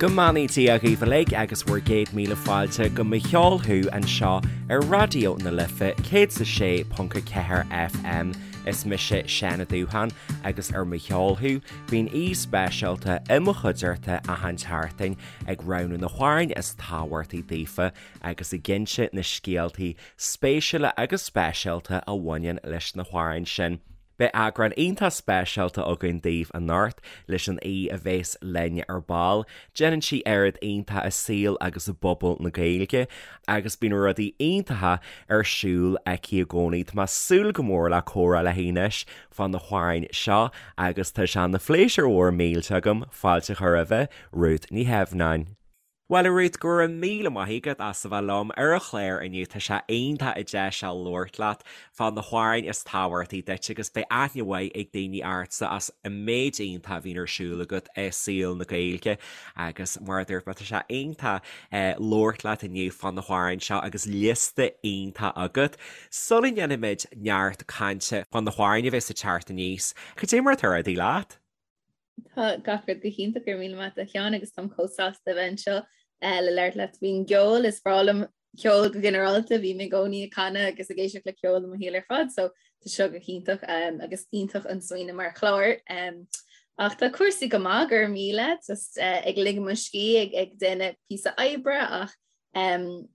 Go mbeannaí Dia dhaoibh uilig agus bhur gcéad míle fáilte go Mo Cheol Thú anseo ar Raidió na Life 106.4 FM. Is mise Seán Ó Dúcháin agus ar Mo Cheol Thú bíonn aoi speisialta i mo chuideachta achan tseachtain ag roghnú na hamhráin is tábhachtaí daofa agus ag inse na scéaltaí spéisiúla agus speisialta a bhaineann leis na hamhráin sin. Beidh eagrán iontach speisialta againn daoibh anocht leis an aoi a bhéas linn ar ball. Déanann sí oiread iontach i saol agus i bpobal na Gaeilge agus bíonn rudaí iontacha ar siúl aici i gcónaí. Tá mé ag súil go mór le comhrá léi anois fá na hamhráin seo agus tá sé ina phléisiúr mhór millteach agam fáilte a chur roimhe, Rút Ní Theimhneáin. Bhuel, a Ruth, go raibh míle maith agat as a bheith liom ar an chlár inniu. Tá sé iontach an deis seo labhairt leat fá na hamhráin is tábhachtaí duit agus beidh aithne mhaith ag daoine ortsa as an méid iontach a bhíonn ar siúl agat i saol na Gaeilge agus mar a dúirt mé, tá sé iontach labhairt leat inniu fá na hamhráin seo agus liosta iontach agat. Sula ndéanfaimid neart cainte fá na hamhráin a bheas ag teacht aníos, cad é mar atá rudaí leat? Tá gach rud go hiontach go raibh míle maith agat a Sheáin agus táim chomh sásta a bheith anseo le labhairt leat faoin gceol. Is breá liom ceol go ginearálta, bím i gcónaí ag canadh agus ag éisteacht le ceol i mo shaol ar fad, so tá seo go hiontach agus iontach an smaoineamh mar chlár. Ach tá cúrsaí go maith, go raibh míle, just ag ligean mo scíth, ag déanamh píosa oibre ach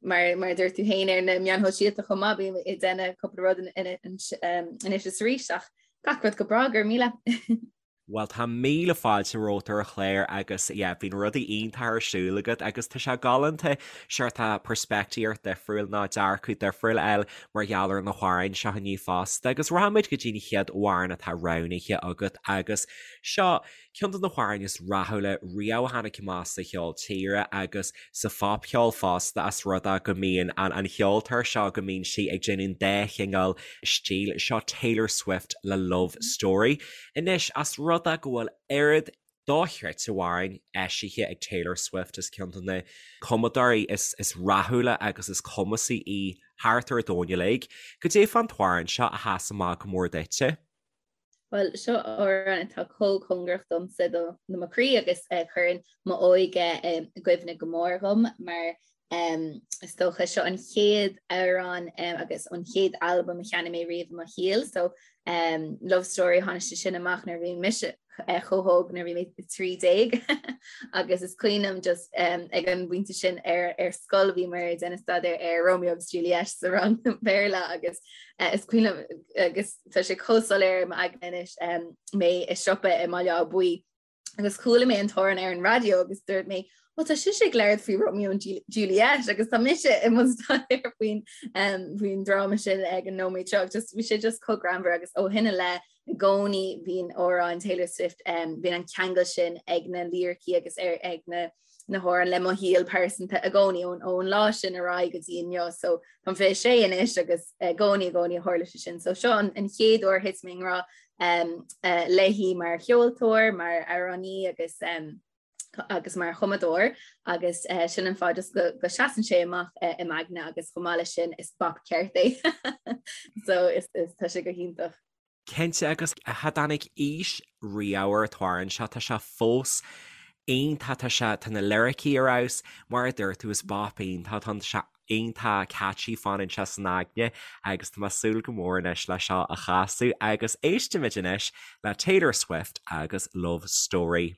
mar mar a dúirt tú féin ar na meáin shóisialta chomh maith, bím ag déanamh cúpla rud anois is arís ach gach rud go breá, go raibh míle. Bhuel tá míle fáilte romhat ar an chlár agus yeah bíonn rudaí iontacha ar siúl agat agus tá sé galánta seort peirspictíocht difriúil nó dearcadh difriúil a fháil mar gheall ar na hamhráin seo inniu fosta agus rachaimid go dtí an chéad amhrán atá roghnaithe agat agus seo ceann de na hamhráin is rathúla riamh a tháinig amach sa cheol tíre agus sa phopcheol fosta as rud é go mbíonn an an cheoltóir seo go mbíonn sí ag déanamh an dá chineál stíl seo Taylor Swift le Love Story. Anois as rud é go bhfuil oiread dochreidte amhráin eisithe ag Taylor Swift is ceann de na cumadóirí is is rathúla agus is cumasaí í thart ar an domhan uilig. Cad é fán t-amhrán seo a sheas amach go mór duitse? Bhuel, seo amhrán atá chomh cóngarach domsa do mo chroí agus a chuireann m'óige i gcuimhne go mór dhom mar is dócha seo an chéad amhrán agus an chéad albam a cheannaigh mé riamh i mo shaol. So Love Story tháinig sé sin amach nuair a bhí mise chomh hóg nuair a bhí mé 13 agus is cuimhin liom just ag an bpointe sin ar ar scoil bhíomar ag déanamh staidéar ar Romeo agus Juliet sa rang Béarla agus is cuimhin liom agus tá sé chomh soiléir i m'aigne anois mé i siopa i mBaile Átha Buí agus chuala mé an t-amhrán ar an raidió agus dúirt mé Ó tá sise ag labhairt faoi Romeo and Juliet agus tá mise i mbun staidéir faoin faoin dráma sin ag an nóiméad seo just bhí sé just chomh greannmhar agus ó shin i leith i gcónaí bíonn amhráin Taylor Swift bíonn an ceangal sin ag na liricí agus ar ag na na hamhráin le mo shaol pearsanta i gcónaí ón ón lá sin ar aghaidh go dtí inniu so táim 26 anois agus i gcónaí i gcónaí a tharla sé sin so seo an, an chéad uair thit mé i ngrá um, uh, léi mar cheoltóir mar amhránaí agus um, agus mar chumadóir agus uh, sin an fáth just go, go seasann sé amach uh, i m'aigne agus chomh maith leis sin is bop ceart é so is, is tá sé go hiontach. Cinnte, agus cha dtáinig aois riamh ar an t-amhrán seo, tá sé fós iontach, tá sé, tá na liricí ar fheabhas, mar a dúirt tú, is bop iontach atá ann, tá sé iontach catchy, fanann sé san aigne agus tá mé ag súil go mór anois le seo a chasadh agus éistimid anois le Taylor Swift agus Love Story.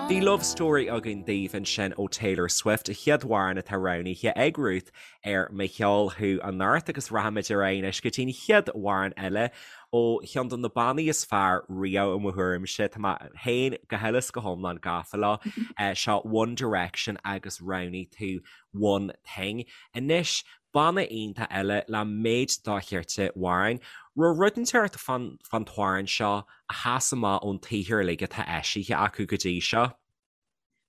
Bhí Love Story againn daoibh ansin ó Taylor Swift, a chéad amhrán atá roghnaithe ag Ruth ar Mo Cheol Thú anocht agus rachaimid ar aghaidh anois go dtí an chéad amhrán eile ó cheann de na bannaí is fearr riamh i mo thuairimse, tá mé féin go huile is go hiomlán gafa leo, seo One Direction agus roghnaigh tú One Thing. Anois, banna iontach eile le méid dochreidte amhrán. Raibh rud inteacht fán t-amhrán seo a sheas amach ón tsaothar uilig atá eisithe acu go dtí seo?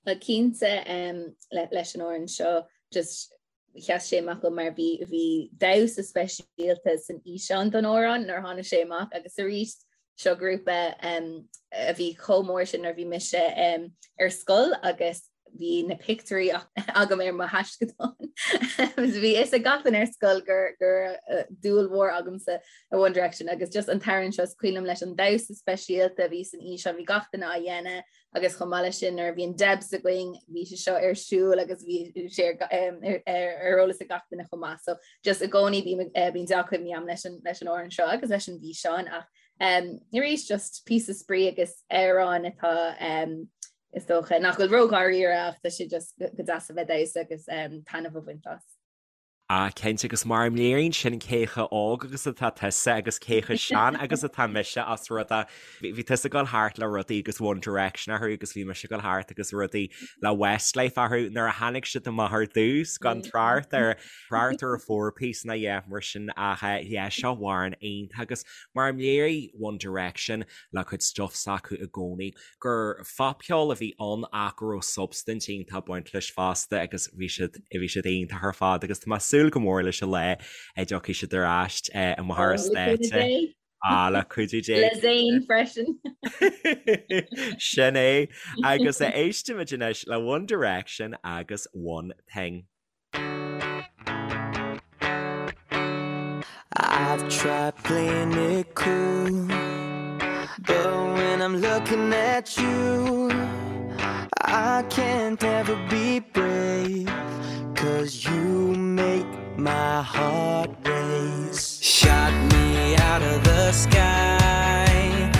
Bhuel cinnte leis an amhrán seo just. Sheas sé amach dom mar bhí bhí damhsa speisialta san fhíseán don amhrán nuair a tháinig sé amach agus arís seo grúpa a bhí chomh mór sin nuair a bhí mise ar scoil agus bhí na pictiúirí agam ar mo thaisceadán. Bhí fhios ag gach duine ar scoil gur gur dúil mhór agamsa i One Direction agus just an t-amhrán seo is cuimhin liom leis an damhsa speisialta a bhí san fhíseán, bhí gach duine á dhéanamh agus chomh maith leis sin nuair a bhí an Debs againn bhí sé seo ar siúl agus bhí sé ar eolas ag gach duine chomh maith. So just i gcónaí bím eh, bíonn dea-chuimhní agam leis an leis an amhrán seo agus leis an bhfíseán ach um, arís just píosa spraoi agus amhrán atá um, is dócha nach bhfuil ró-dháiríre ach tá sé just go deas a bheith ag damhsa agus um, taitneamh a bhaint as. Ah, cinnte, agus mar a léiríonn sin cé chomh óg agus atá tusa agus cé chomh sean agus atá mise as rud é. Bhí tusa ag dul thart le rudaí agus One Direction orthu agus bhí mise ag dul thart agus rudaí le Westlife orthu nuair a tháinig siad amach ar dtús gan trácht ar trácht ar a four piece ná yeah mar sin ach yeah seo amhrán iontach agus mar a léirigh One Direction le cuid stuff s'acu i gcónaí gur phopcheol a bhí ann ach go raibh substaint iontach ag baint leis fosta agus bhí siad bhí siad iontach ar fad agus tá mé ag súil go mór leis an lá a dtiocfaidh siad ar ais amach ar an stáitse. Ah, le cuidiú Dé. Le Zayn freisin. Sin é. Agus éistimid anois le One Direction agus One Thing. I've tried playing it cool But when I'm looking at you I can't ever be brave Cause you make my heart race Shot me out of the sky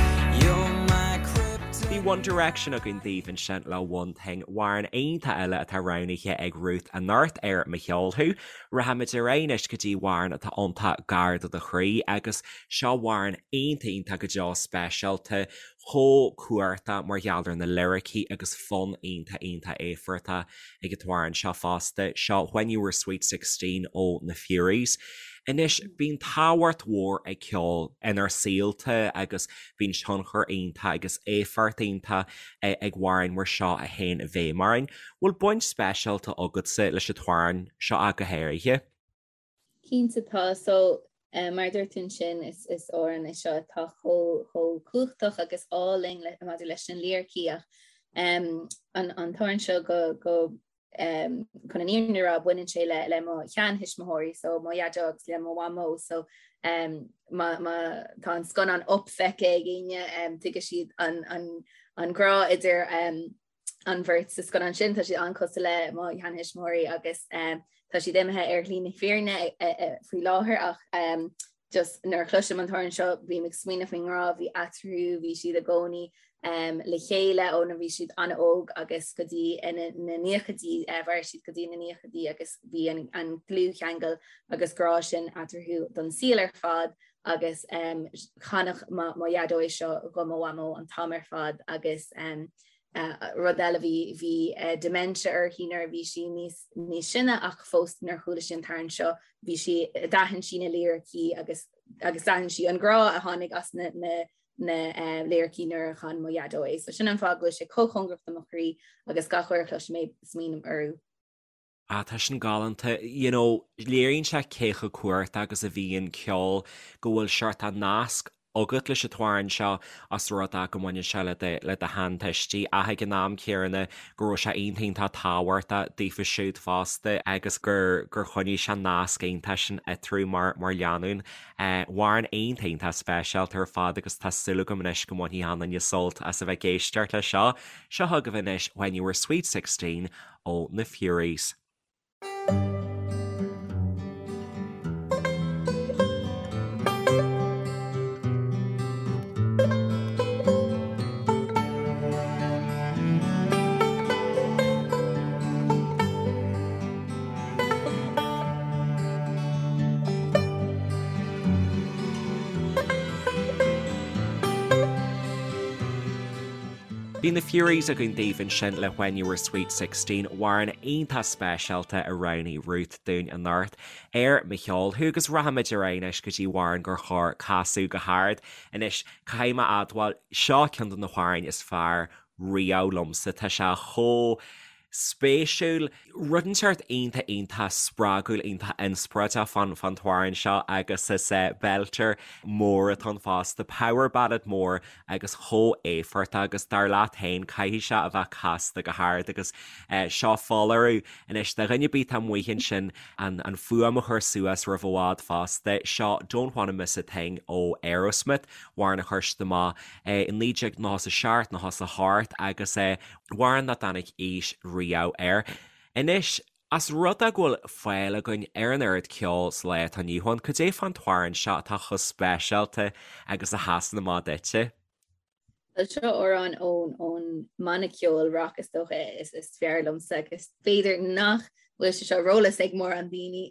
You're my kryptonite Bhí One Direction againn daoibh ansin le One Thing, amhrán iontach eile atá roghnaithe ag Ruth anocht ar Mo Cheol Thú. Rachaimid ar aghaidh anois go dtí amhrán atá iontach gar do do chroí agus seo amhrán iontach iontach go deo speisialta, chomh cumhachtach mar gheall ar na liricí agus fonn iontach iontach éifeachtach ag an t-amhrán seo fosta, seo When You Were Sweet 16 ó na Fureys. Anois, bíonn tábhacht mhór ag ceol inár saolta agus bíonn tionchar iontach agus éifeacht iontach ag amhráin mar seo a théann i bhfeidhm orainn. Bhfuil baint speisialta agatsa leis an t-amhrán seo ach go háirithe? Cinnte tá. So, mar a dúirt tú ansin, is is amhrán é seo atá chomh chomh cumhachtach agus álainn le maidir leis na liricí ach um, an an t-amhrán seo go go um, chun an fhírinne a rá baineann sé le le mo sheantuismitheoirí so mo dhaideo agus le mo mhamó so um, má má tá an scannán Up feicthe ag éinne um, tuigfidh siad an an an grá idir um, an bheirt sa scannán sin, tá siad an-chosúil le mo sheantuismitheoirí agus tá siad imithe ar shlí na fírinne faoi láthair ach just nuair a chloisim an t-amhrán seo bím ag smaoineamh faoin ngrá a bhí eatarthu, bhí siad i gcónaí le chéile ó nuair bhí siad an-óg agus go dtí na naochaidí, mhair siad go dtí na naochaidí agus bhí an dlúthcheangal agus grá sin eatarthu don saol ar fad agus chanadh mo dhaideo é seo do mo mhamó an t-am ar fad agus rud eile bhí bhí dementia uirthi nuair a bhí sí níos níos sine ach fós nuair a chuala sí an t-amhrán seo bhí sí d'aithin sí na liricí agus agus d'aithin sí an grá a tháinig as na na na liricí nuair a chan mo dhaideo é. So sin an fáth go bhfuil sé chomh cóngarach do mo chroí agus gach uair a chloisim é smaoiním orthu. Ah, tá sin galánta. You know, léiríonn sé cé chomh cumhachtach agus a bhíonn ceol, go bhfuil seort nasc agat leis an t-amhrán seo as rud é go mbaineann sé le do, le do sheantuistí ach ag an am céanna go raibh sé iontach iontach tábhachtach daofa siúd fosta agus gur, gur choinnigh sé an nasc iontach sin eatarthu mar, mar lánúin. Amhrán iontach iontach speisialta ar fad agus tá súil agam anois go mbainfidh achan duine sult as a bheith ag éisteacht leis seo. Seo chugaibh anois When You Were Sweet 16 ó na Fureys. Bhí na Fureys againn daoibh ansin le When You Were Sweet 16, amhrán iontach speisialta a roghnaigh Ruth dúinn anocht ar Mo Cheol Thú agus rachaimid ar aghaidh anois go dtí amhrán gur chóir casadh go hard. Anois, caithfidh mé a admháil, seo ceann de na hamhráin is fearr riamh liomsa, tá sé chomh. spéisiúil, rud inteacht iontach iontach spreagúil iontach inspioráideach fán fán t-amhrán seo agus is belter mór atá ann fosta, power ballad mór agus chomh éifeachtach agus dar leat féin caithfidh sé a bheith casta go hard agus seo foláireamh anois do dhuine ar bith atá amuigh ansin an an fuaim a chur suas roimh i bhfad fosta, seo Don't Wanna Miss a Thing ó Aerosmith, amhrán a chuir siad amach i 1997, 98 agus amhrán nach dtáinig aois riamh air. Anois, as rud é go bhfuil fáil againn ar an oiread ceoil sa lá atá inniu ann, cad é fán t-amhrán seo atá chomh speisialta agus a sheasann amach duitse? Bhuel, seo amhrán ón ón mbanna ceoil rock is dócha is is fearr liomsa agus b'fhéidir nach bhfuil sé seo ar eolas ag mórán daoine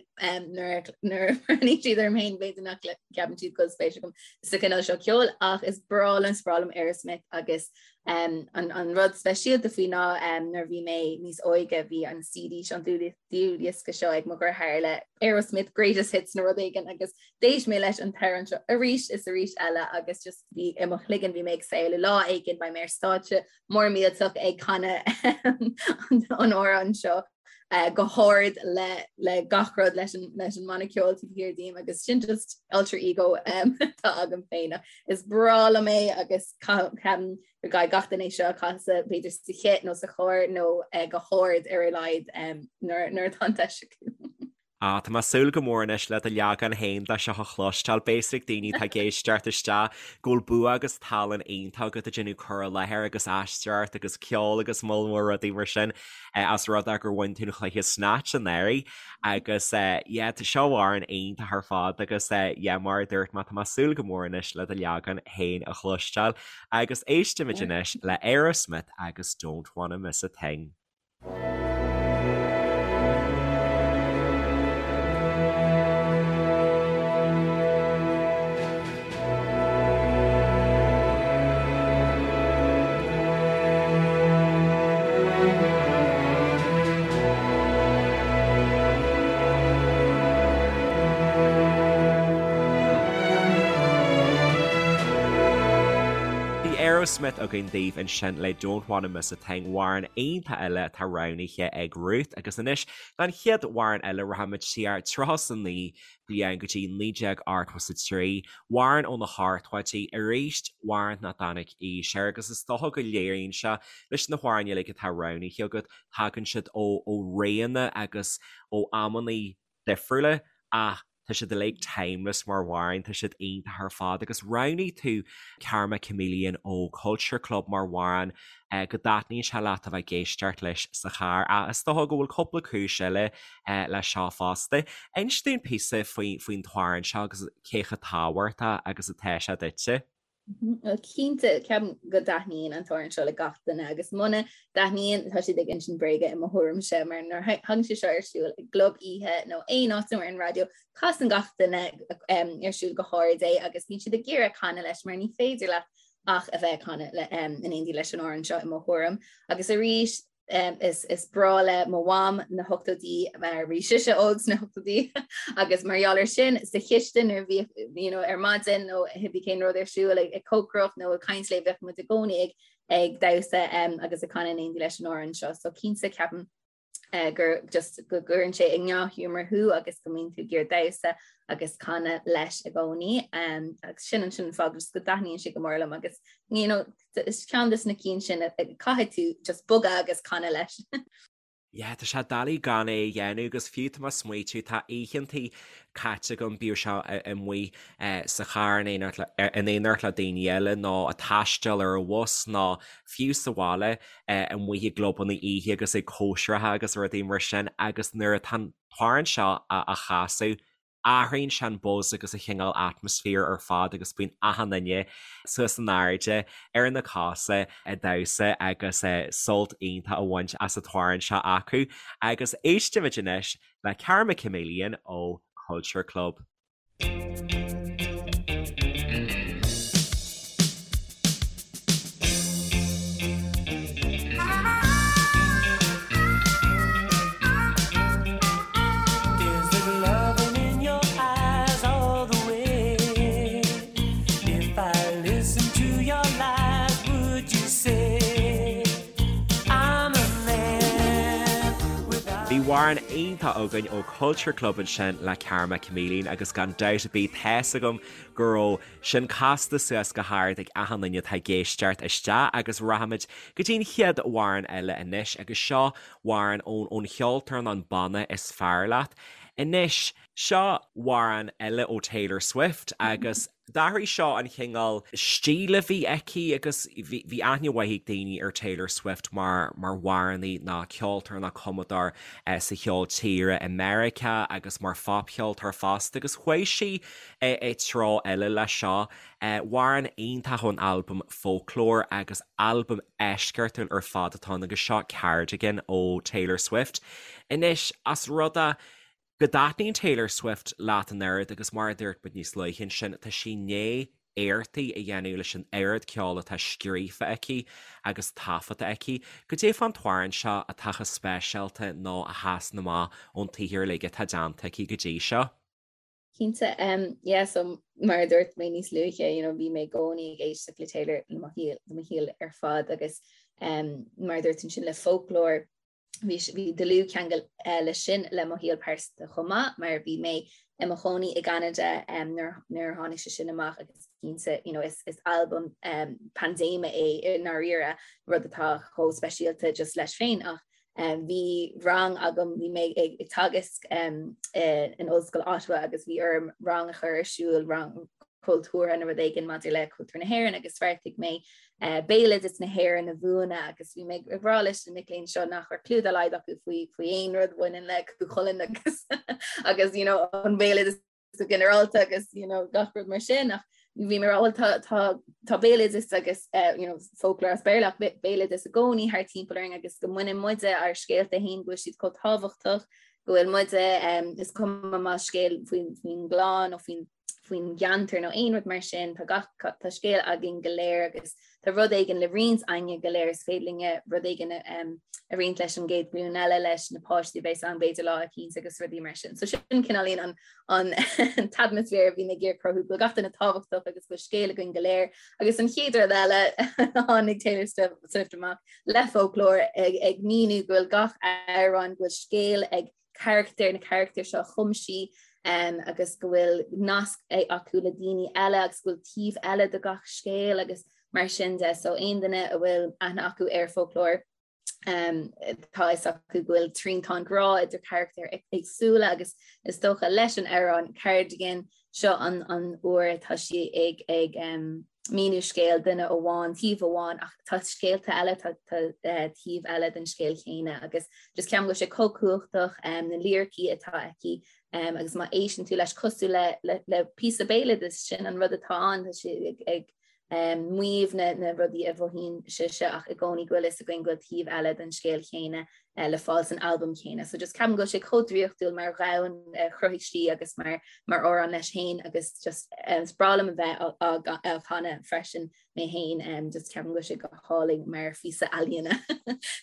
nuair nuair a bhreathnaíonn siad orm féin b'fhéidir nach gceapann siad go bhfuil spéis agam sa chineál seo ceoil ach is breá liom is breá liom Aerosmith agus um, an, an rud speisialta faoi ná um, nuair bhí mé níos óige bhí an CD seo an dlúthdhiosca seo ag mo dheartháir le Aerosmith Greatest Hits nó rud éigin agus d'éist mé leis an t-amhrán seo arís is arís eile agus just bhí i mo chloigeann bhí mé ag samhlú lá éigin beidh mé ar stáitse mór millteach ag canadh an amhrán seo uh, go hard le, le gach rud leis an, leis an mbanna ceoil taobh thiar díom agus sin just alter ego um, atá agam féin. Is breá liom é agus ceapaim go gcaithfidh gach duine seo a chasadh b'fhéidir sa chith nó sa charr nó uh, go hard ar a laghad um, nuair, nuair atá an deis acu. Ah, tá mé ag súil go mór anois le do leagan féin de seo a chloisteáil. Beidh a fhios ag daoine atá ag éisteacht isteach go bhfuil bua agus tallann iontach agat ag déanamh cur i láthair agus aisteoireacht agus ceol agus moll mór rudaí mar sin as rud é gur bhain tú an chluiche Snatch anuraidh agus yeah, tá seo amhrán iontach ar fad agus yeah, mar a dúirt mé, tá mé ag súil go mór anois le do leagan féin a chloisteáil agus éistimid anois le Aerosmith agus Don't Wanna Miss a Thing. Bhí Aerosmith againn daoibh ansin le Don't Wanna Miss a Thing, amhrán iontach eile atá roghnaithe ag Ruth agus anois don chéad amhrán eile rachaimid siar 39 bliain go dtí 1983, amhrán ó na hochtóidí, arís amhrán nach dtáinig aois air agus is dócha go léiríonn sé leis na hamhráin uilig atá roghnaithe agat, tagann siad ó réanna agus ó amannaí difriúla ach tá siad uilig timeless mar amhráin, tá siad iontach ar fad agus roghnaigh tú Karma Chameleon ó Culture Club mar amhrán go dtaitníonn sé leat a bheith ag éisteacht leis sa charr ach is dócha go bhfuil cúpla cúis eile leis seo fosta. Inis dúinn píosa faoin t-amhrán seo agus cé chomh tábhachtach agus atá sé duitse. Bhuel cinnte, ceapaim go dtaitníonn an t-amhrán seo le gach duine agus muna dtaitníonn tá siad ag insint bréige i mo thuairimse mar nuair a thagann sé seo ar siúl i gclub oíche nó aon áit nó ar an raidió casann gach duine ar siúl go hard é agus bíonn siad ag iarraidh canadh leis mar ní féidir leat ach a bheith ag canadh in éindí leis an amhrán seo i mo thuairim. Agus arís Is breá le mo mham na hochtóidí mar bhí sise óg sna hochtóidí agus mar gheall air sin sa chistin nuair a bhíodh you know, ar maidin nó cibé cén rud ar siúl ag, ag cócaireacht nó ag caint léi bheadh muid i gcónaí ag, ag damhsa um, agus ag canadh in éindí leis an amhrán seo. So cinnte ceapaim uh, gur just go gcuireann sé i ndea-ghiúmar thú agus go mbíonn tú ag iarraidh damhsa agus canadh leis i gcónaí. Um, agus sin an sin fáth just go dtaitníonn sé go mór liom agus you know, Is ceann de na cinn sin a caithfidh tú just bogadh agus canadh leis. Yeah, tá sé doiligh gan é a dhéanamh agus fiú tá mé ag smaoitiú, tá oícheantaí caite agam, bíodh sé amuigh sa charr in éineacht le daoine eile nó ag taisteal ar an bhus nó fiú sa bhaile amuigh i gclubanna oíche agus ag cóisireacha agus rudaí mar sin agus nuair atá an t-amhrán seo á chasadh, Athraíonn sé an buzz agus an chineál atmaisféir ar fad agus bíonn achan duine suas in airde ar na cosa ag damhsa agus sult iontach á bhaint as an t-amhrán seo acu. Agus éistimid anois le Karma Chameleon ó Culture Club. amhrán iontach againn ó Culture Club ansin le Karma Chameleon agus gan dabht ar bith tá's agam go raibh sin casta suas go hard ag achan duine atá ag éisteacht isteach agus rachaimid go dtí an chéad amhrán eile anois agus seo amhrán ón ón cheoltóir nó an banna is fearr leat. Anois, seo amhrán eile ó Taylor Swift agus D'athraigh seo an chineál stíl a bhí aici agus bhí aithne mhaith ag daoine ar Taylor Swift mar mar amhránaí nó ceoltóir nó cumadóir sa cheol tíre i Meiriceá agus mar phopcheoltóir fosta agus chuaigh sí i treo eile leis seo. Amhrán iontach ón albam Folklore agus albam eisceachtúil ar fad atá ann agus seo Cardigan ó Taylor Swift. Anois, as rud é go dtaitníonn Taylor Swift leat an oiread agus mar a dúirt muid níos luaithe ansin, tá sí i ndiaidh éachtaí a dhéanamh leis an oiread ceoil atá scríofa aici agus taifeadta aici. Goidé fán t-amhrán seo atá chomh speisialta nó a sheasann amach ón tsaothar uilig atá déanta aici go dtí seo? Cinnte, yeah, so mar a dúirt mé níos luaithe, you know, bhí mé i gcónaí ag éisteacht le Taylor le mo shaol, le mo shaol ar fad agus mar a dúirt ansin le Folklore, Bhí bhí dlúthcheangal leis sin le mo shaol pearsanta chomh maith mar bhí mé i mo chónaí i gCeanada nuair nuair a tháinig sé sin amach agus cinnte you know, is, is albam um, paindéime é i ndáiríre rud atá chomh speisialta just leis féin ach um, bhí rang agam bhí mé ag, ag teagasc um, in Ollscoil Ottawa agus bhí orm rang a chur ar siúl rang cultúrtha nó rud éigin maidir le cultúr na hÉireann agus bheartaigh mé béaloideas na hÉireann a mhúineadh agus bhí mé ag rá leis na mic léinn seo nach raibh clue dá laghad acu faoi faoi aon rud a bhaineann le Cú Chulainn agus agus you know, an béaloideas go ginearálta agus you know, gach rud mar sin ach bhí mé rá tá tá tá béaloideas agus uh, you know, folklore as Béarla ach béaloideas i gcónaí thart timpeall orainn agus go mbaineann muide ár scéalta féin go bhfuil siad chomh tábhachtach go bhfuil muide um, is cuma más scéal faoin faoin gclann nó faoin faoin gceantar nó aon rud mar sin, tá gach, tá scéal againn go léir agus tá rud éigin le roinnt againne go léir, is féidir linne rud éigin a roinnt leis an gcéad ghlúin eile, leis na páistí a bheas ann b'fhéidir lá eicínt agus rudaí mar sin. So sin cineáilín an an t-atmaisféar a bhí mé ag iarraidh cruthú, go bhfuil gach duine tábhachtach agus go bhfuil scéal againn go léir. Agus an chéad rud eile tháinig Taylor Swift amach le Folklore ag ag míniú go bhfuil gach amhrán, go bhfuil scéal ag carachtair, na carachtair seo a chum sí agus go bhfuil nasc acu le daoine eile agus go bhfuil taobh eile de gach scéal agus mar sin de. So aon duine a bhfuil aithne acu ar Folklore um, tá fhios acu go bhfuil triantán grá idir carachtair éagsúla agus is dócha leis an amhrán Cardigan seo an an uair atá sí ag ag um, míniú scéal duine amháin, taobh amháin, ach tá scéalta eile, tá taobh eile den scéal chéanna agus just ceapaim go bhfuil sé chomh cumhachtach na liricí atá aici agus má éisteann tú leis cosúil le le le píosa béaloidis sin an rud atá ann, tá sé ag ag maíomh na na rudaí a mhothaíonn sise ach i gcónaí go bhfuil fhios againn go bhfuil taobh eile den scéal chéanna le fáil san albam chéanna. So just ceapaim go bhfuil sé chomh draíochtúil mar dhomhan a chruthaigh sí agus mar mar amhrán leis féin agus just is breá liom a bheith á chanadh freisin mé féin just ceapaim go bhfuil sé go hálainn mar phíosa ealaíona.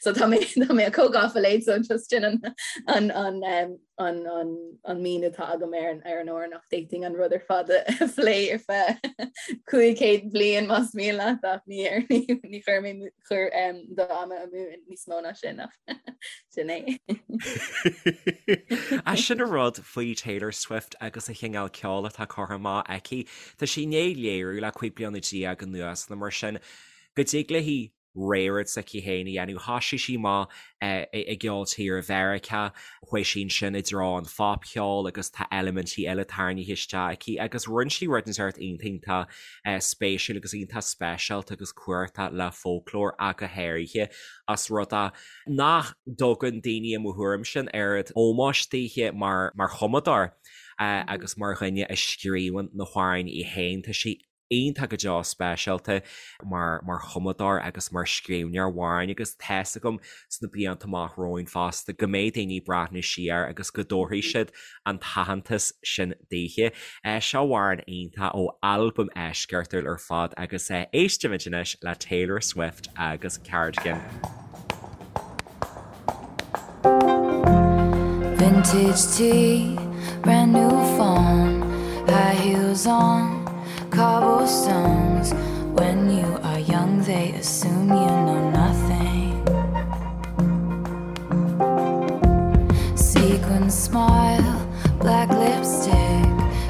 So tá mé tá mé chomh gafa léi so just sin an an an an an an míniú atá agam ar an ar an amhrán ach d'fhéadfainn an rud ar fad a phlé ar feadh 500 bliain más mian leat ach ní ar ní ní chuir mé chur do ama amú níos mó ná sin ach sin é. Ach sin an rud faoi Taylor Swift agus an chineál ceoil atá curtha amach aici. Tá sí i ndiaidh léiriú le 15 bliana anuas nó mar sin go dtig léi rud s'aici féin a dhéanamh. Thosaigh sí amach i gceol tíre Mheiriceá, chuaigh sí ansin i dtreo an phopcheoil agus tá eilimintí eile tarraingthe isteach aici agus rinne sí rud inteacht iontach iontach spéisiúil agus iontach speisialta agus cumhachtach le Folklore ach go háirithe as rud é nach dtugann daoine i mo thuairimse an oiread ómóis daoithe mar mar chumadóir agus mar dhuine a scríobhann na hamhráin í féin. Tá sí iontach go deo speisialta mar mar chumadóir agus mar scríbhneoir amhráin agus tá's agam sna blianta amach romhainn fosta go mbeidh daoine ag breathnú siar agus go dtabharfaidh siad an t-aitheantas sin daoithe. Seo amhrán iontach ó albam eisceachtúil ar fad agus éistimid anois le Taylor Swift agus Cardigan. Vintage tee, brand new phone, high heels on, cobblestones. When you are young, they assume you know nothing. Golden smile, black lipstick,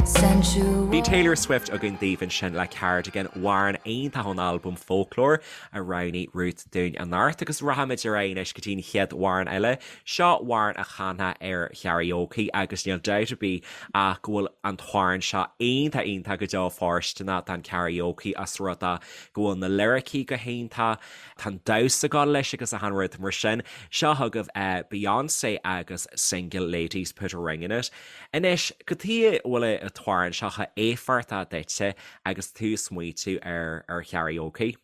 sensual. Bhí Taylor Swift againn daoibh ansin le Cardigan, amhrán iontach ón albam Folklore a roghnaigh Ruth dúinn anocht agus rachaimid ar aghaidh anois go dtí an chéad amhrán eile. Seo amhrán a chanfá ar karaoke agus níl dabht ar bith ach go bhfuil an t-amhrán seo iontach iontach go deo fóirsteanach don karaoke os rud é go bhfuil na liricí go hiontach, Tá an damhsa ag gabháil leis agus achan rud mar sin. Seo chugaibh Beyonce agus Single Ladies Put a Ring in It. Anois, cad chuige a bhfuil an t-amhrán seo chomh éifeachtach duitse agus tú ag smaoitiú ar ar karaoke?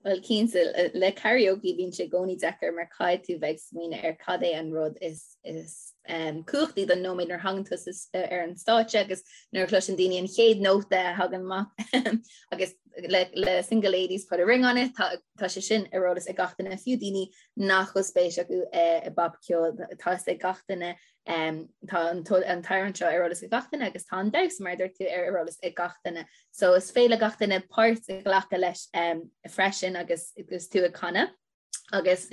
Bhuel, cinnte, le karaoke bíonn sé i gcónaí deacair mar caithfidh tú bheith ag smaoineamh ar cad é an rud is is cumhachtaí don nóiméad nuair a thagann tú ar an stáitse agus nuair a chloiseann daoine an chéad nóta a thagann amach agus le le Single Ladies Put a Ring on It tá tá sé sin ar eolas ag gach duine, fiú daoine nach bhfuil spéis acu i bpopcheol tá fhios ag gach duine tá an an t-amhrán seo ar eolas ag gach duine agus tá an damhsa mar a dúirt tú ar eolas ag gach duine. So is féidir le gach duine páirt a ghlacadh leis freisin agus agus tú ag canadh. Agus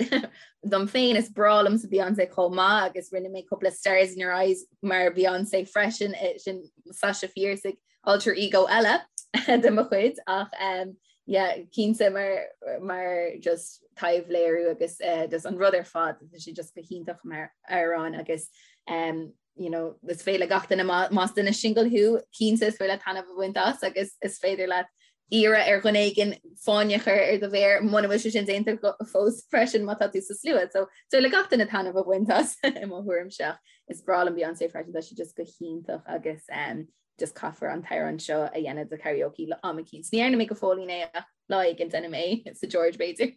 dom féin is breá liomsa Beyonce chomh maith agus rinne mé cúpla Stars in Your Eyes mar Beyonce freisin eh, sin Sasha Fierce ag alter ego eile de mo chuid ach um, yeah, cinnte mar, mar just taibhléiriú agus uh, just an rud ar fad tá sé just go hiontach mar amhrán agus um, you know, is féidir le gach duine más duine single thú cinnte is féidir leat taitneamh a bhaint as agus is féidir leat iarraidh ar dhuine éigin fáinne a chur ar do mhéar muna bhfuil sé sin déanta fós freisin má tá tú sa slua. So is féidir le gach duine taitneamh a bhaint as i mo thuairimse ach is breá liom Beyonce freisin tá sí just go hiontach agus um, just caithfear an t-amhrán seo a dhéanamh do karaoke le am eicínt. Ní dhearna mé go fóillín é ach lá éigin déanfaidh mé sa George b'fhéidir.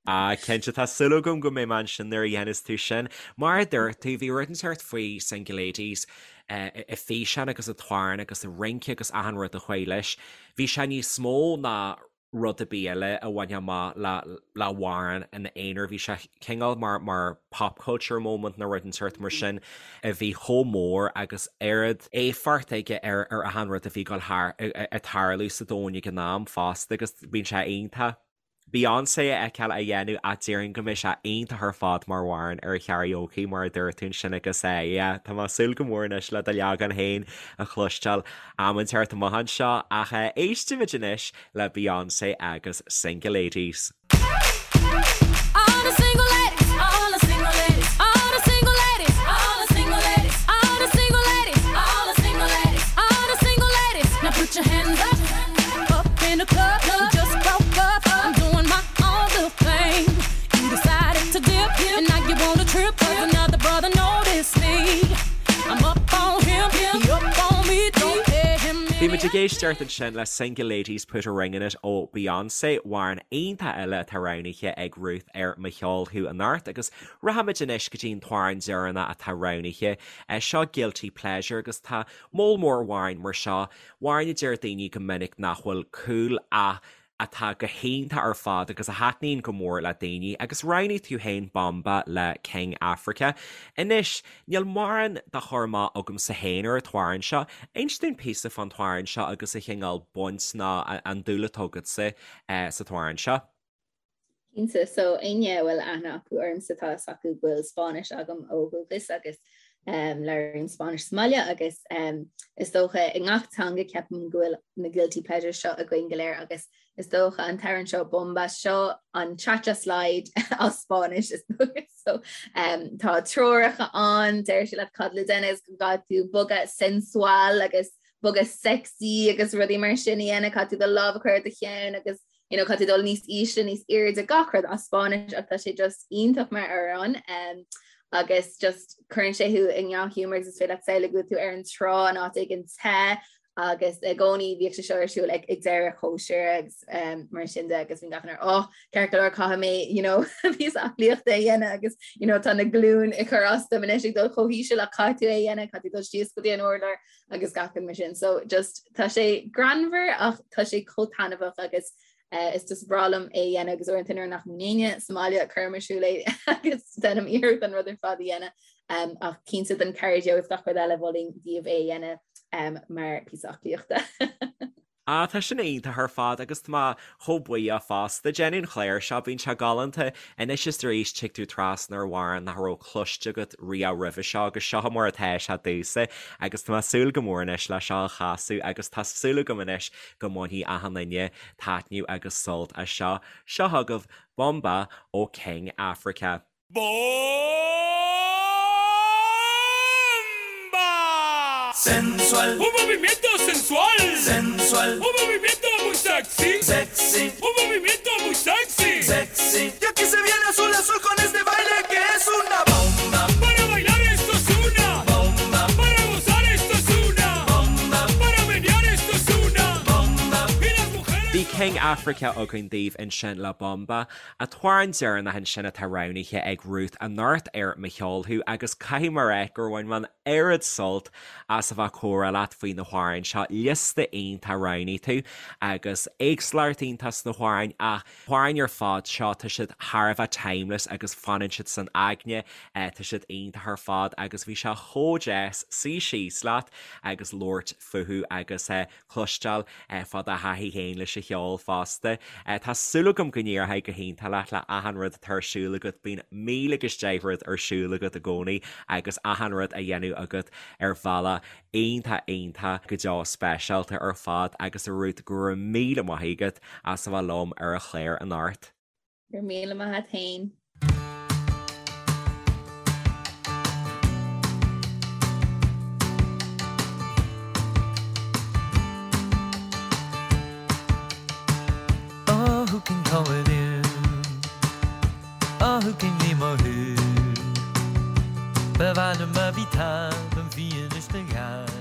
Ah, cinnte, tá súil agam go mbeidh mé ansin nuair a dhéanas tú sin. Mar a dúirt tú, bhí rud inteacht faoi Single Ladies, an físeán agus an t-amhrán agus an rince agus achan rud a chuaigh leis. Bhí sé níos mó ná rud ar bith eile a bhainfeadh amach le le hamhrán ina aonar. Bhí sé cineál mar mar pop culture moment nó rud inteacht mar sin a bhí chomh mór agus oiread éifeacht aige ar ar achan rud a bhí ag dul thar ag tarlú sa domhan ag an am fosta agus bíonn sé iontach. Beyonce a fheiceáil á dhéanamh ach déarfainn go mbeidh sé iontach ar fad mar amhrán ar karaoke mar a dúirt tú ansin agus eh yeah tá mé ag súil go mór anois le do leagan féin a chloisteáil am inteacht amach anseo ach eh éistimid anois le Beyonce agus Single Ladies. All the single ladies, all the single ladies, all the single ladies, all the single ladies, all the single ladies, all the single ladies, all the single ladies. Now put your hands up, up in the club, just broke up. I'm doing my own little thing. You decided to dip, and now you want a trip. 'Cause another brother noticed me. I'm up on him, he up on me. Don't pay him Bhí muid ag éisteacht ansin le Single Ladies Put a Ring in It ó Beyonce, amhrán iontach eile atá roghnaithe ag Ruth ar Mo Cheol Thú anocht agus rachaimid anois go dtí an t-amhrán deireanach atá roghnaithe. Seo Guilty Pleasure agus tá moll mór amhráin mar seo, amhráin a deir daoine go minic nach bhfuil cool ach atá go hiontach ar fad agus a thaitníonn go mór le daoine agus roghnaigh tú féin Bomba le King Africa. Anois, níl mórán de chur amach agamsa féin ar an t-amhrán seo. Inis dúinn píosa fán t-amhrán seo agus an chineál baint nó an dúil atá agatsa sa t-amhrán seo. Cinnte, so éinne a bhfuil aithne acu ormsa tá fhios acu go bhfuil Spáinnis agam ó dhúchas agus um, labhraím Spáinnis sa mbaile agus um, is dócha i ngach teanga ceapaim go bhfuil na guilty pleasures seo againn go léir agus is dócha an t-amhrán seo Bomba seo an cha-cha slide as Spáinnis is dócha so um, tá treoracha ann deir sé leat cad le déanamh go gcaithfidh tú bogadh sensual agus bogadh sexy agus rudaí mar sin a dhéanamh caithfidh tú do lámh a chur ar do cheann agus you know, caithfidh tú dul níos ísle, níos airde gach rud as Spáinnis ach tá sé just iontach mar amhrán um, agus just cuireann sé thú i ndea-ghiúmar agus is féidir leat samhlú go bhfuil tú ar an trá in áit éigin te agus i gcónaí bhíodh sé seo ar siúl ag, ag deireadh cóisir agus um, mar sin de agus bhí gach duine oh, ceart go leor caithfidh mé you know, píosa aclaíochta a dhéanamh agus you know, tá na glúin ag cur as dom anois ag dul chomh híseal ach caithfidh tú é a dhéanamh, caithfidh tú dul síos go dtí an urlár agus gach rud mar sin. So just tá sé greannmhar ach tá sé chomh taitneamhach agus uh, is just breá liom é a dhéanamh agus uaireanta nuair nach mbíonn éinne sa mbaile cuirim ar siúl é agus déanaim iarracht an rud ar fad a dhéanamh um, ach cinnte don cardio agus gach rud eile mholfainn daoibh é a dhéanamh um, mar píosa aclaíochta. Ah, tá sin iontach ar fad agus tá mé chomh buíoch fosta. Déanann an clár seo, bíonn sé galánta. Anois is arís tig tú trasna ar amhrán nach raibh cloiste agat riamh roimhe seo agus seo mar atá sé domhsa agus tá mé ag súil go mór anois le seo a chasadh agus tá súil agam anois go mbainfidh achan duine taitneamh agus sult as seo. Seo chugaibh Bomba ó King Africa. ¡Bomba! Sensual. Un movimiento sensual. Sensual. Un movimiento muy sexy. Sexy. Un movimiento muy sexy. Sexy. Y aquí se viene azul azul con este baile que es una bomba. Para bailar esto es una bomba. Para gozar esto es una bomba. Para menear esto es una bomba. Y las mujeres. Bhí King Africa againn daoibh ansin le Bomba. An t-amhrán deireanach ansin atá roghnaithe ag Ruth anocht ar Mo Cheol Thú agus caithfidh mé a rá gur bhain mé an oiread sult as a bheith ag comhrá leat faoi na hamhráin seo. Liosta iontach a roghnaigh tú agus éagsúlacht iontach sna hamhráin ach na hamhráin ar fad seo tá siad thar a bheith timeless agus fanann siad san aigne, tá siad iontach ar fad agus bhí sé chomh deas suí síos leat agus labhairt fúthu agus cloisteáil fá do thaithí féin leis an cheol fosta. Tá súil agam go n-éireoidh go hiontach leat le achan rud atá ar siúl agat, bíonn míle agus deich rud ar siúl agat i gcónaí agus achan rud á dhéanamh agat ar bhealach iontach iontach go deo speisialta ar fad agus a Ruth go raibh míle maith agat as a bheith liom ar an chlár anocht. Go raibh míle maith agat féin. Oh who can come with you Oh who can leave mo who Ba mhaith liom a bhí tá an bhí anois do gheall.